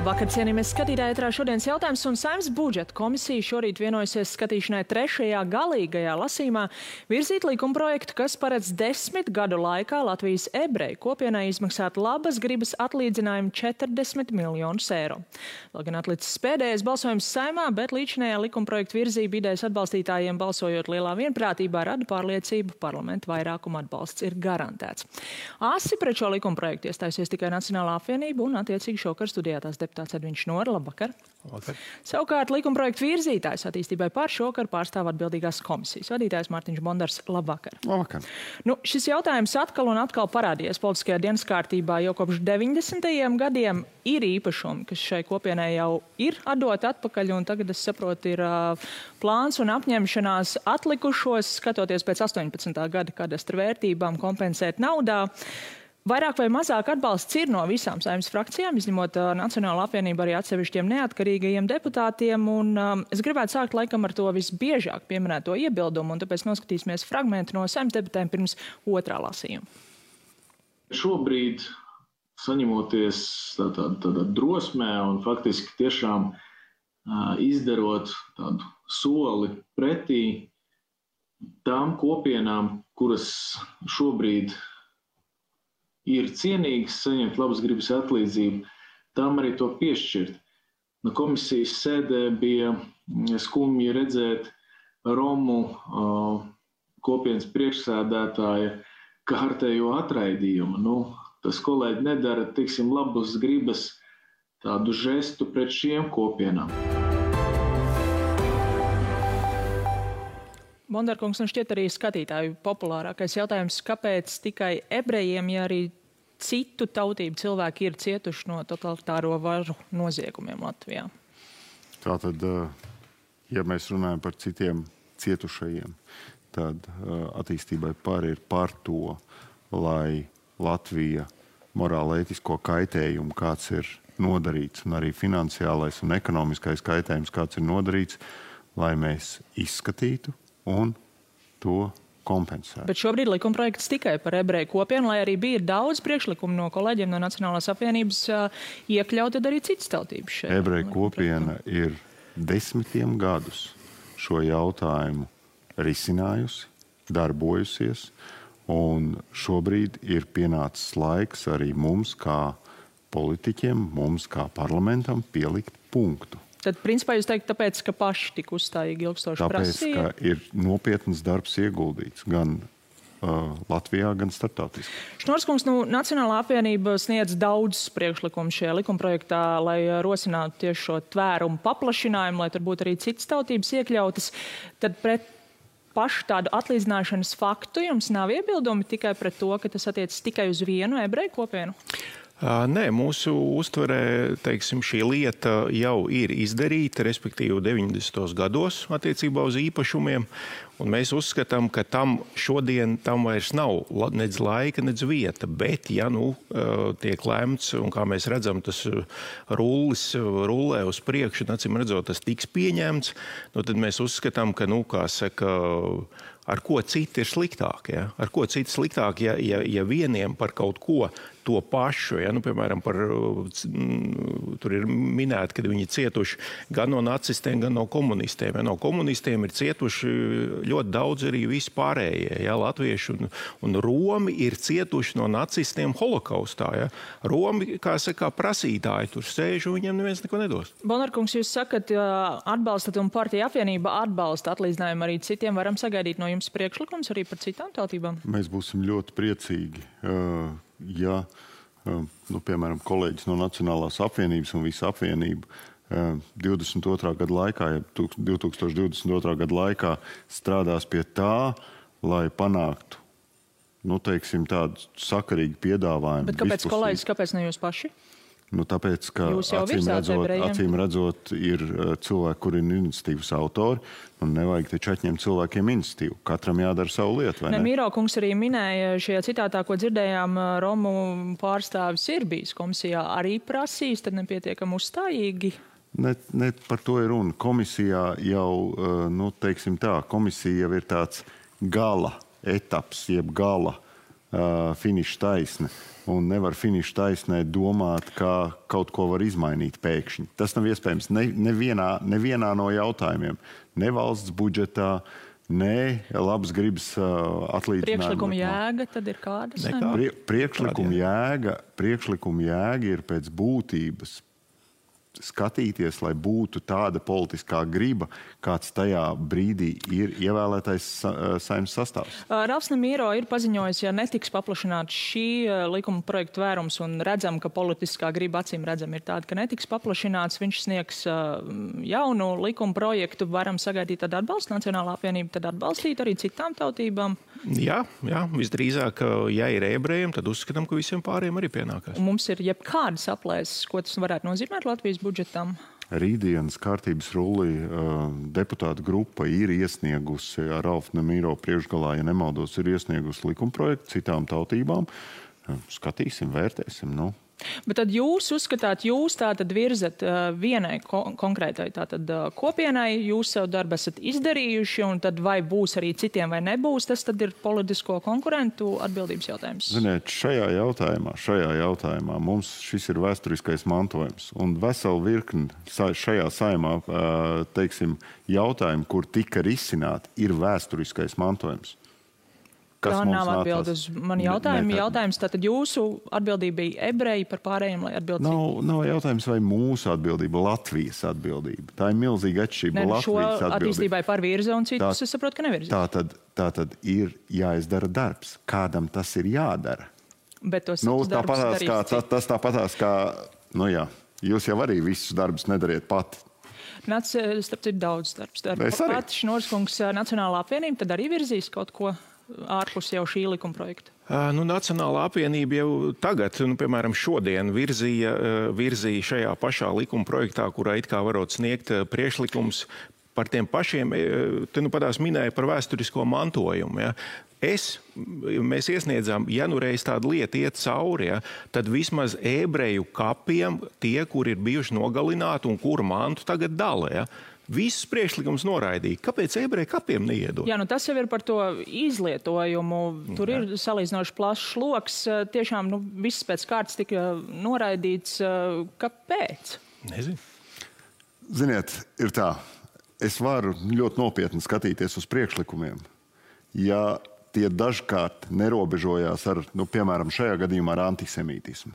Labvakar, cienījamies skatītāji, ētrā šodienas jautājums, un Saeimas budžeta komisija šorīt vienojusies skatīšanai trešajā galīgajā lasījumā virzīt likumprojektu, kas paredz 10 gadu laikā Latvijas ebreju kopienai izmaksāt labas gribas atlīdzinājumu 40 miljonus eiro. Vēl gan atlicis pēdējais balsojums Saeimā, bet līdzinējā likumprojektu virzība idejas atbalstītājiem balsojot lielā vienprātībā rada pārliecību, parlamenta vairākuma atbalsts ir garantēts. Asi pret šo likumprojektu iestājusies tikai Nacionālā apvienība un attiecīgi šokar studijā tās deputāts Edviņš Nora. Labvakar. Labvakar. Savukārt likumprojektu virzītājs attīstībai par šokar pārstāv atbildīgās komisijas vadītājs Mārtiņš Bondars. Labvakar. Labvakar. Šis jautājums atkal un atkal parādījies politiskajā dienas kārtībā jau kopš 90. gadiem. Ir īpašumi, kas šai kopienai jau ir atdoti atpakaļ, un tagad, es saprotu, ir plāns un apņemšanās atlikušos, skatoties pēc 18. gada kadastra vērtībām, kompensēt naudā. Vairāk vai mazāk atbalsts ir no visām Saeimas frakcijām, izņemot Nacionālo apvienību arī atsevišķiem neatkarīgajiem deputātiem, un es gribētu sākt laikam ar to visbiežāk pieminēto iebildumu, un tāpēc noskatīsimies fragmentu no Saeimas debatēm pirms otrā lasījuma. Šobrīd, saņemoties tādā drosmē un faktiski tiešām izdarot tādu soli pretī tām kopienām, kuras šobrīd ir cienīgas saņemt labas gribas atlīdzību, tām arī to piešķirt. No komisijas sēdē bija skumji redzēt Romu kopienas priekšsēdētāja kārtējo atraidījumu. Tas kolēģi nedara, tiksim, labas gribas tādu žestu pret šiem kopienām. Bondarkungs, šķiet arī skatītāju populārākais jautājums, kāpēc tikai ebrejiem, ja arī citu tautību cilvēki ir cietuši no totalitāro varu noziegumiem Latvijā? Tātad, ja mēs runājam par citiem cietušajiem, tad attīstībai ir par to, lai Latvija morāli-ētisko kaitējumu, kāds ir nodarīts, un arī finansiālais un ekonomiskais kaitējums, kāds ir nodarīts, lai mēs izskatītu un to kompensētu. Bet šobrīd likumprojekts tikai par ebreju kopienu, lai arī bija daudz priekšlikumu no kolēģiem no Nacionālās apvienības iekļaut arī citas tautības šeit. Ebreju kopiena ir 10 gadus šo jautājumu risinājusi, darbojusies, un šobrīd ir pienācis laiks arī mums kā politiķiem, mums kā parlamentam pielikt punktu. Tad, principā, jūs teikt, tāpēc, ka paši tik uzstājīgi ilgstoši prasīja? Tāpēc, ka ir nopietnas darbs ieguldīts gan Latvijā, gan starptautiski. Šnorskungs, Nacionālā apvienība sniedz daudz priekšlikumu šajā likumprojektā, lai rosinātu tieši šo tvērumu paplašinājumu, lai tur būtu arī citas tautības iekļautas. Tad pret pašu tādu atlīdzināšanas faktu jums nav iebildumi tikai pret to, ka tas attiecas tikai uz vienu ebreju kopienu? Nē, mūsu uztverē, teiksim, šī lieta jau ir izdarīta, respektīvi 90. gados attiecībā uz īpašumiem, un mēs uzskatām, ka šodien tam vairs nav nec laika, nec vieta, bet, ja tiek lemts, un kā mēs redzam, tas rullē uz priekšu, un acīm redzot, tas tiks pieņemts, tad mēs uzskatām, ka, kā saka, ar ko citi ir sliktāk, ja? Ar ko citi sliktāk, ja vieniem par kaut ko to pašu, ja? Piemēram, tur ir minēti, ka viņi cietuši gan no nacistiem, gan no komunistiem. Ja? No komunistiem ir cietuši ļoti daudz arī vispārējie, ja? Latvieši un Romi ir cietuši no nacistiem holokaustā. Ja? Romi, kā saka, prasītāji tur sēž un viņiem neviens neko nedos. Bondarkungs, jūs sakat, atbalstat un partija apvienība atbalsta atlīdzinājumu arī citiem. Varam sagaidīt no jums priekšlikums arī par citām tautībām? Mēs būsim ļoti priecīgi, ja, piemēram, kolēģis no Nacionālās apvienības un visa apvienība 22. gada laikā, ja 2022. gada laikā strādās pie tā, lai panāktu, teiksim, tādu sakarīgu piedāvājumu. Bet kāpēc kolēģis, kāpēc ne jūs paši? Tāpēc, ka acīm redzot ir cilvēki, kuri ir iniciatīvas autori, un nevajag taču atņemt cilvēkiem iniciatīvu. Katram jādara savu lietu, vai ne? Mīro kungs arī minēja šajā citātā, ko dzirdējām, Romu pārstāvis ir bijis komisijā arī prasījis, tad nepietiekam uzstājīgi. Ne par to ir runa. Komisijā jau, teiksim tā, komisija jau ir tāds gala etaps, jeb gala finiša taisne. Un nevar finiša taisnē domāt, kā kaut ko var izmainīt pēkšņi. Tas nav iespējams nevienā no jautājumiem. Ne valsts budžetā, ne labas gribas atlīdzinājuma. Priekšlikuma jēga tad ir kāda? Priekšlikuma jēga ir pēc būtības skatīties, lai būtu tāda politiskā griba, kāds tajā brīdī ir ievēlētais Saeimas sastāvs. Ralfs Nemīro ir paziņojis, ja netiks paplašināts šī likuma projekta vērums un redzam, ka politiskā griba acīm redzam ir tāda, ka netiks paplašināts, viņš sniegs jaunu likuma projektu, varam sagaidīt tad atbalstu, Nacionālā apvienība tad atbalstīt arī citām tautībām. Jā, visdrīzāk, ja ir ebrejiem, tad uzskatām, ka visiem pārējiem arī pienākās. Un mums ir jebkādas aplēses, ko tas varētu nozīmēt Latvijas budžetam. Rītdienas kārtības rullī deputāta grupa ir iesniegusi ar Ralfu Nemīro priekšgalā, ja nemaldos, ir iesniegusi likumprojektu citām tautībām. Skatīsim, vērtēsim, Bet tad jūs uzskatāt, jūs tātad virzat vienai konkrētai tātad kopienai, jūs savu darbu esat izdarījuši, un tad vai būs arī citiem vai nebūs, tas tad ir politisko konkurentu atbildības jautājums. Ziniet, šajā jautājumā mums šis ir vēsturiskais mantojums, un veselu virkni šajā saimā, teiksim, jautājumu, kur tika risināti, ir vēsturiskais mantojums. Tā nav atbild uz mani jautājumu. Jautājums, tātad jūsu atbildība bija ebreji par pārējiem, lai atbildību? Nav jautājums, vai mūsu atbildība, Latvijas atbildība. Tā ir milzīga atšķirība. Šo attīstībai par virza un citus, es saprotu, ka nevirza. Tātad ir jāizdara darbs. Kādam tas ir jādara? Bet tos darbus darīs. Tas tāpatās kā, jūs jau arī visus darbus nedariet pati. Starp citu daudz darbs. Pat Šnorskungs Nacionālā apvienība tad arī virzīs kaut ko ārpus jau šī likuma projekta? Nacionālā apvienība jau tagad, piemēram, šodien virzīja šajā pašā likuma projektā, kurā it kā varot sniegt priekšlikums par tiem pašiem, te padās minēja par vēsturisko mantojumu. Ja. Mēs iesniedzām, ja reiz tāda lieta iet cauri, tad vismaz ebreju kapiem tie, kur ir bijuši nogalināti un kuru mantu tagad dala. Ja. Visus priekšlikums noraidīja. Kāpēc ebreju kapiem neiedod? Jā, tas jau ir par to izlietojumu. Tur ir salīdzinoši plašs loks. Tiešām viss pēc kārtas tika noraidīts. Kāpēc? Nezinu. Ziniet, ir tā. Es varu ļoti nopietni skatīties uz priekšlikumiem. Ja tie dažkārt nerobežojās ar, piemēram, šajā gadījumā ar antisemītismu.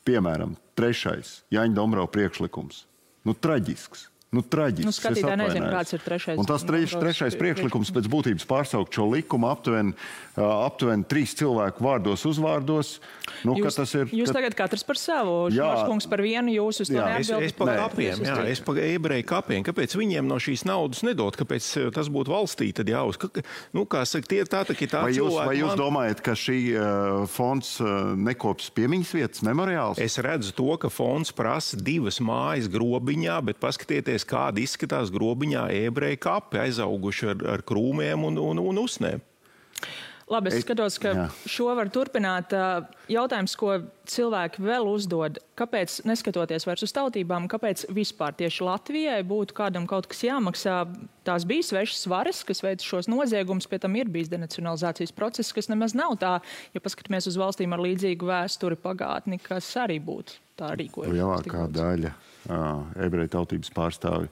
Piemēram, 3. Jāņa Dombrava priekšlikums. Traģisks. Traģisks. Skatītāji nezinu, kāds ir 3. Un tas 3. priekšlikums pēc būtības pārsaukt šo likumu aptuveni 3 cilvēku vārdos uzvārdos. Jūs tagad katrs par savu, Šnorskungs par vienu, jūs uz to neatbildat? Es par kapiem, es par ebreju kapiem. Kāpēc viņiem no šīs naudas nedod? Kāpēc tas būtu valstī tad jāuz? Kā saka, tā cilvēki... Vai jūs domājat, ka šī fonds nekops piemiņas vietas memoriāls? Es redzu to, ka fonds prasa 2 mājas grobiņā, bet paskatieties, kādi izskatās grobiņā ebreju kapi, aizauguši ar krūmiem un usnēm. Labi, es skatos, ka šo var turpināt. Jautājums, ko cilvēki vēl uzdod, kāpēc, neskatoties vairs uz tautībām, kāpēc vispār tieši Latvijai būtu kādam kaut kas jāmaksā? Tās bija svešas varas, kas veic šos noziegumus, pie tam ir bijis denacionalizācijas process, kas nemaz nav tā, ja paskatāmies uz valstīm ar līdzīgu vēsturi pagātni, kas arī būtu tā rīkojuši. Lielākā daļa ebreju tautības pārstāvi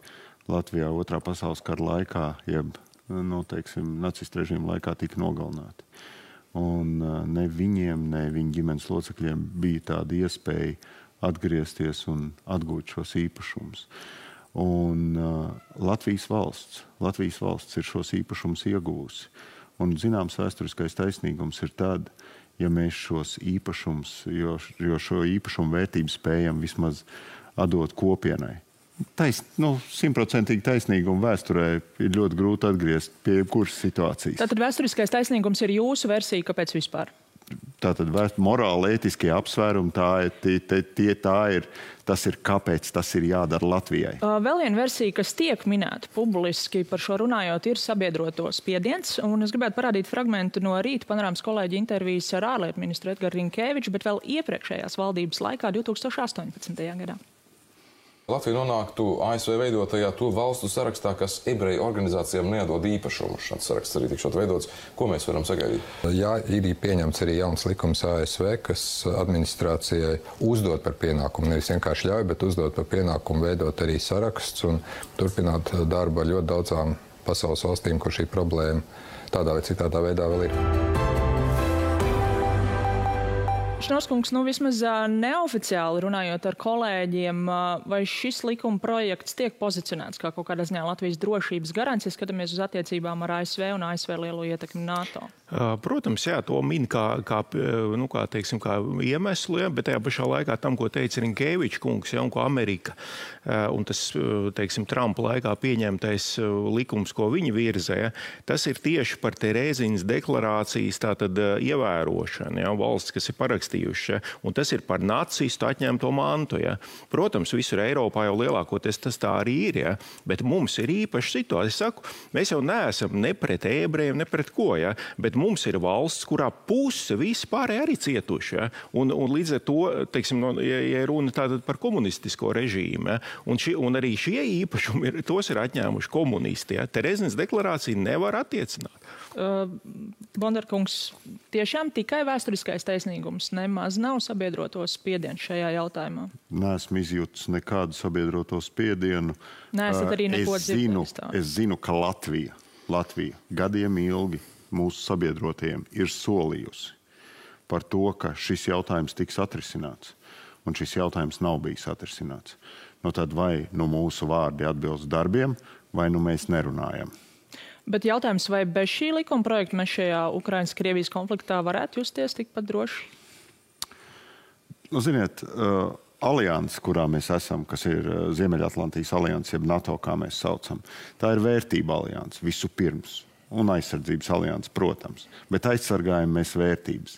Latvijā 2. pasaules kara laikā, jeb nacistu režīmu laikā tika nogalināti. Un ne viņiem, ne viņu ģimenes locekļiem bija tāda iespēja atgriezties un atgūt šos īpašumus. Un Latvijas valsts ir šos īpašumus ieguvusi. Un zināms vēsturiskais taisnīgums ir tad, ja mēs šos īpašumus, jo šo īpašumu vērtību spējam vismaz atdot kopienai. 100% taisnīgumu vēsturē ir ļoti grūti atgriezt pie jebkuras situācijas. Tātad vēsturiskais taisnīgums ir jūsu versija, kāpēc vispār? Tātad morāli ētiskie apsvērumi, tas ir kāpēc tas ir jādara Latvijai. Vēl viena versija, kas tiek minēta publiski par šo runājot, ir sabiedroto spiediens. Un es gribētu parādīt fragmentu no rīta panorāmas kolēģi intervijas ar ārlietu ministru Edgars Rinkēviču, bet vēl iepriekšējās valdības laikā 2018. gadā. Latvija nonāktu ASV veidotajā to valstu sarakstā, kas ebreju organizācijām neatdod īpašumu. Šāds saraksts arī tikšot veidots. Ko mēs varam sagaidīt? Jā, ir pieņemts arī jauns likums ASV, kas administrācijai uzdod par pienākumu, nevis vienkārši ļauj, bet uzdod par pienākumu veidot arī saraksts un turpināt darbu ar ļoti daudzām pasaules valstīm, kur šī problēma tādā vai citādā veidā vēl ir. Šnoskungs, vismaz neoficiāli runājot ar kolēģiem, vai šis likuma projekts tiek pozicionēts kā kaut kādā ziņā Latvijas drošības garants, ja skatāmies uz attiecībām ar ASV un ASV lielo ietekmi NATO? Protams, jā, to min kā iemeslu, ja, bet tajā pašā laikā tam, ko teica Rinkēvičs kungs, ja, un ko Amerika, un tas, Trumpa laikā pieņemtais likums, ko viņi virzē, ja, tas ir tieši par Terēziņas deklarācijas tātad ievērošanu, ja, valsts, kas ir parakstījuši, ja, un tas ir par nacistu atņemto mantu, ja. Protams, visur Eiropā jau lielākoties tas tā arī ir, ja, bet mums ir īpaša situācija. Es saku, mēs jau neesam ne pret ebrejiem, ne pret ko, ja, bet mums ir valsts, kurā puse visi pārējie arī cietuši. Ja? Un līdz ar to, ja runa tātad par komunistisko režīmu, ja? un arī šie īpašumi tos ir atņēmuši komunisti. Ja? Terēziņas deklarācija nevar attiecināt. Bondarkungs, tiešām tikai vēsturiskais taisnīgums nemaz nav sabiedroto spiedienu šajā jautājumā? Neesmu izjūtis nekādu sabiedroto spiedienu. Neesat arī neko dzirdējis tā? Es zinu, ka Latvija gadiem ilgi mūsu sabiedrotiem ir solījusi par to, ka šis jautājums tiks atrisināts, un šis jautājums nav bijis atrisināts. Tad vai mūsu vārdi atbilst darbiem, vai mēs nerunājam. Bet jautājums, vai bez šī likuma projekta mēs šajā Ukrainas-Krievijas konfliktā varētu justies tikpat droši? Ziniet, alianse, kurā mēs esam, kas ir Ziemeļatlantijas alianse, jeb NATO, kā mēs saucam, tā ir vērtība alianse visu pirms. Un aizsardzības alianses, protams. Bet aizsargājam mēs vērtības.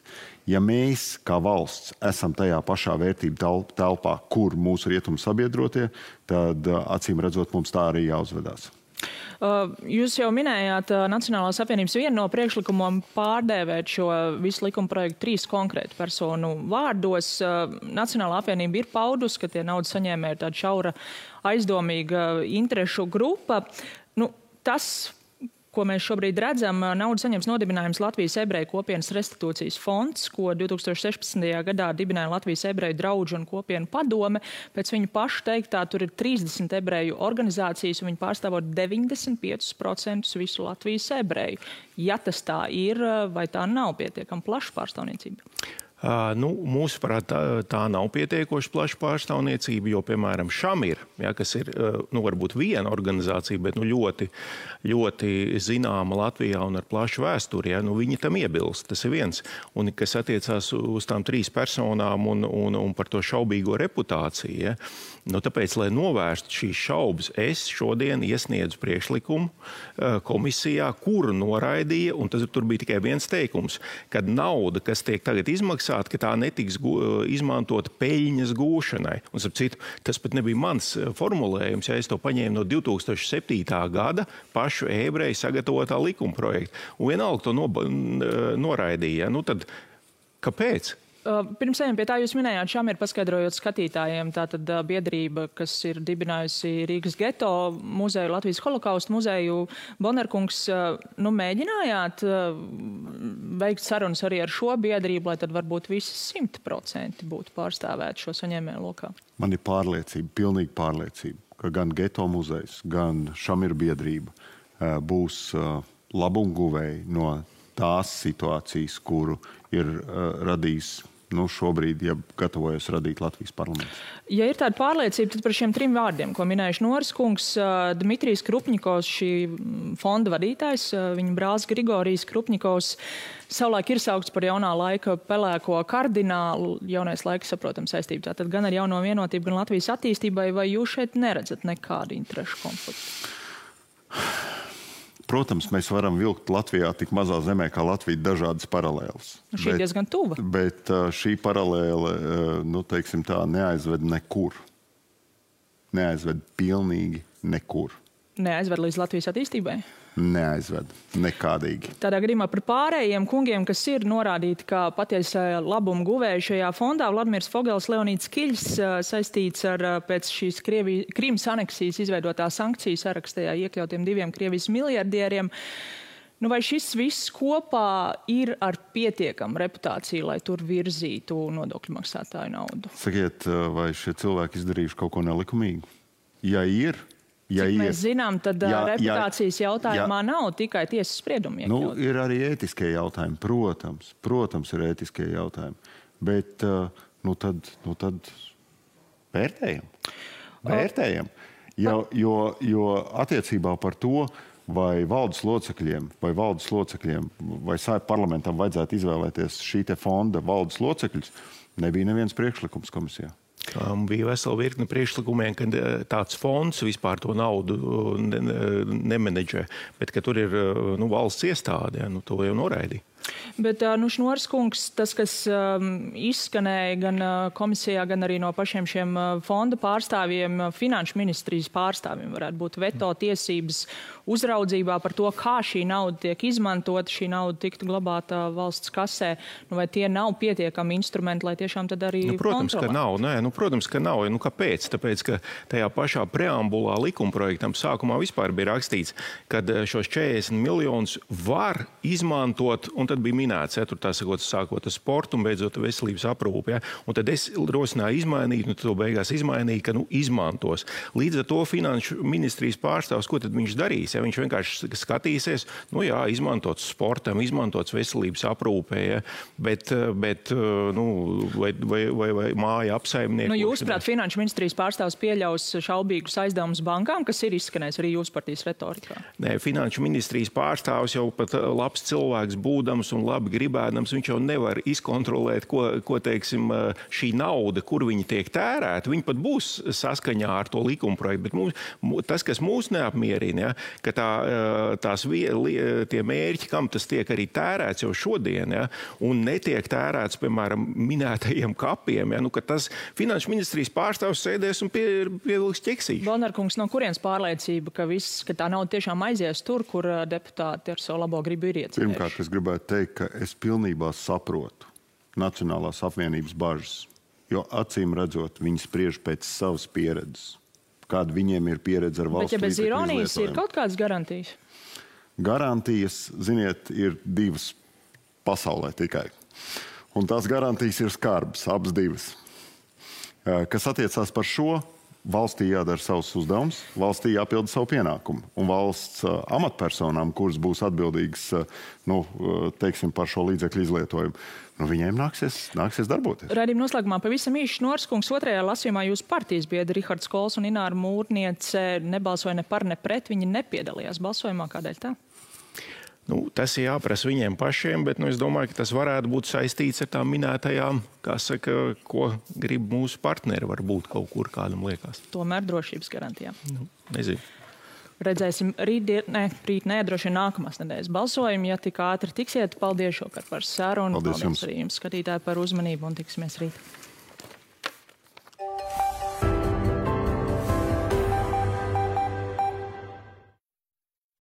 Ja mēs, kā valsts, esam tajā pašā vērtību telpā, kur mūsu rietumu sabiedrotie, tad, acīm redzot, mums tā arī jāuzvedās. Jūs jau minējāt Nacionālās apvienības vienu no priekšlikumiem pārdēvēt šo visu likuma projektu 3 konkrētu personu vārdos. Nacionālā apvienība ir paudus, ka tie naudas saņēmēji ir tāda šaura aizdomīga interešu grupa. Tas, ko mēs šobrīd redzam, naudu saņems nodibinājums Latvijas ebreju kopienas restitūcijas fonds, ko 2016. gadā dibināja Latvijas ebreju draudžu un kopienu padome. Pēc viņu pašu teiktā tur ir 30 ebreju organizācijas, un viņi pārstāvot 95% visu Latvijas ebreju. Ja tas tā ir, vai tā nav pietiekami plaša pārstāvniecība? Mūsuprāt, tā nav pietiekoši plaša pārstāvniecība, jo, piemēram, Šamir, ja, kas ir varbūt viena organizācija, bet ļoti, ļoti zināma Latvijā un ar plašu vēsturi, ja, viņi tam iebilst. Tas ir viens. Un kas attiecās uz tām 3 personām un par to šaubīgo reputāciju, ja, tāpēc, lai novērstu šīs šaubas, es šodien iesniedzu priekšlikumu komisijā, kuru noraidīja, un tur bija tikai viens teikums, kad nauda, kas tiek tagad izmaksāta, ka tā netiks izmantota peļņas gūšanai. Un, starp citu, tas pat nebija mans formulējums, ja es to paņēmu no 2007. gada pašu ebreju sagatavotā likuma projekta. Un vienalga to noraidīja. Tad kāpēc? Pirms ejam pie tā, jūs minējāt, Šamir paskaidrojot skatītājiem, tātad biedrība, kas ir dibinājusi Rīgas geto muzeju, Latvijas holokaustu muzeju. Bondarkungs, mēģinājāt veikt sarunas arī ar šo biedrību, lai tad varbūt visi 100% būtu pārstāvēti šo saņēmēju lokā? Man ir pārliecība, pilnīga pārliecība, ka gan geto muzejs, gan Šamir biedrība būs labumguvēji no tās situācijas, kuru ir radījis šobrīd, ja gatavojas radīt Latvijas parlaments. Ja ir tāda pārliecība, tad par šiem 3 vārdiem, ko minējuši Noris kungs, Dmitrijs Krupņikovs, šī fonda vadītājs, viņa brālis Grigorijs Krupņikovs, savulaik ir saukts par jaunā laika pelēko kardinālu, jaunais laiks, saprotam, saistību. Tātad gan ar jauno vienotību, gan Latvijas attīstībai, vai jūs šeit neredzat nekādu interešu konfliktu? Protams, mēs varam vilkt Latvijā tik mazā zemē kā Latvija dažādas paralēles. Šī diezgan tuva. Bet šī paralēle, teiksim tā, neaizved nekur. Neaizved pilnīgi nekur. Neaizved līdz Latvijas attīstībai? neaizved nekādīgi. Tādā gadījumā par pārējiem kungiem, kas ir norādīti kā patiesā labuma guvēji šajā fondā, Vladimirs Fogels, Leonīds Kiļs, saistīts ar pēc šīs Krīmas aneksijas izveidotā sankciju sarakstā iekļautiem 2 Krievijas miljardieriem. Vai šis viss kopā ir ar pietiekamu reputāciju, lai tur virzītu nodokļu maksātāju naudu? Sakiet, vai šie cilvēki izdarījuši kaut ko nelikumīgu? Ja ir, Cik mēs zinām, tad reputācijas jautājumā nav tikai tiesas spriedumi iekļaut. Ir arī ētiskie jautājumi, protams ir ētiskie jautājumi, bet tad vērtējam. Jo attiecībā par to, vai valdes locekļiem vai Saeimas parlamentam vajadzētu izvēlēties šī te fonda valdes locekļus, nebija neviens priekšlikums komisijā. Bija vesela virkne priekšlikumiem, ka tāds fonds vispār to naudu nemenedžē, bet ka tur ir valsts iestāde, to jau noraidīja. Bet Šnoras kungs, tas, kas izskanēja gan komisijā, gan arī no pašiem šiem fonda pārstāvjiem, finanšu ministrijas pārstāvjiem, varētu būt veto tiesības uzraudzībā par to, kā šī nauda tiek izmantota, šī nauda tiktu glabāta valsts kasē. Vai tie nav pietiekami instrumenti, lai tiešām tad arī kontrolētu? Protams, ka nav. Kāpēc? Tāpēc, ka tajā pašā preambulā likumprojektam sākumā vispār bija rakstīts, ka šos 40 miljonus var izmantot, un tad bija minēts, tur tā sakot, sākot ar sportu un beidzot veselības aprūpi. Un tad es rosināju izmainīt, to beigās izmainīju, ka izmantos. Līdz ar to finanšu ministrijas pārstāvs, ko tad viņš darīs? Viņš vienkārši skatīsies, izmantots sportam, izmantots veselības aprūpē, bet vai māja apsaimnieku. Jūsuprāt, finanšu ministrijas pārstāvs pieļaus šaubīgus aizdevumus bankām, kas ir izskanējis arī jūsu partijas retorikā? Nē, finanšu ministrijas pārstāvs jau pat labs cilvēks būdams un labi gribēdams, viņš jau nevar izkontrolēt, ko teiksim, šī nauda, kur viņi tiek tērēta. Viņi pat būs saskaņā ar to likumprojektu, bet tas, kas mūs neapmierina, ka tie mērķi, kam tas tiek arī tērēts jau šodien, un netiek tērēts, piemēram, minētajiem kapiem, ka tas finanšu ministrijas pārstāvs sēdēs un pievilks ķeksīšu. Balnarkungs, no kurienes pārliecība, ka tā nauda tiešām aizies tur, kur deputāti ar savu labo gribu ir iecerējuši? Pirmkārt, es gribētu teikt, ka es pilnībā saprotu Nacionālās apvienības bažas, jo acīm redzot, viņi spriež pēc savas pieredzes. Kāda viņiem ir pieredze ar valsts līdzekļu izlietojumu. Bet, ja bez ironijas ir kaut kādas garantijas? Garantijas, ziniet, ir divas pasaulē tikai. Un tās garantijas ir skarbas, abas divas. Kas attiecās par šo, valstī jādara savus uzdevumus, valstī jāpilda savu pienākumu. Un valsts amatpersonām, kuras būs atbildīgas par šo līdzekļu izlietojumu, viņiem nāksies darboties. Raidījuma noslēgumā pavisam īsi Šnoras kungs, otrajā lasījumā jūsu partijas biedri Rihards Kols un Ināra Mūrniece nebalsoja ne par, ne pret, viņi nepiedalījās balsojumā. Kādēļ tā? Tas ir jāprasa viņiem pašiem, bet es domāju, ka tas varētu būt saistīts ar tām minētajām, ko grib mūsu partneri, varbūt kaut kur kādam liekas. Tomēr drošības garantijām. Nezinu. Redzēsim rīt, droši vien nākamās nedēļas balsojumu. Ja tik ātri tiksiet, paldies šokar par sarunu. Paldies arī jums, skatītāji, par uzmanību un tiksimies rīt.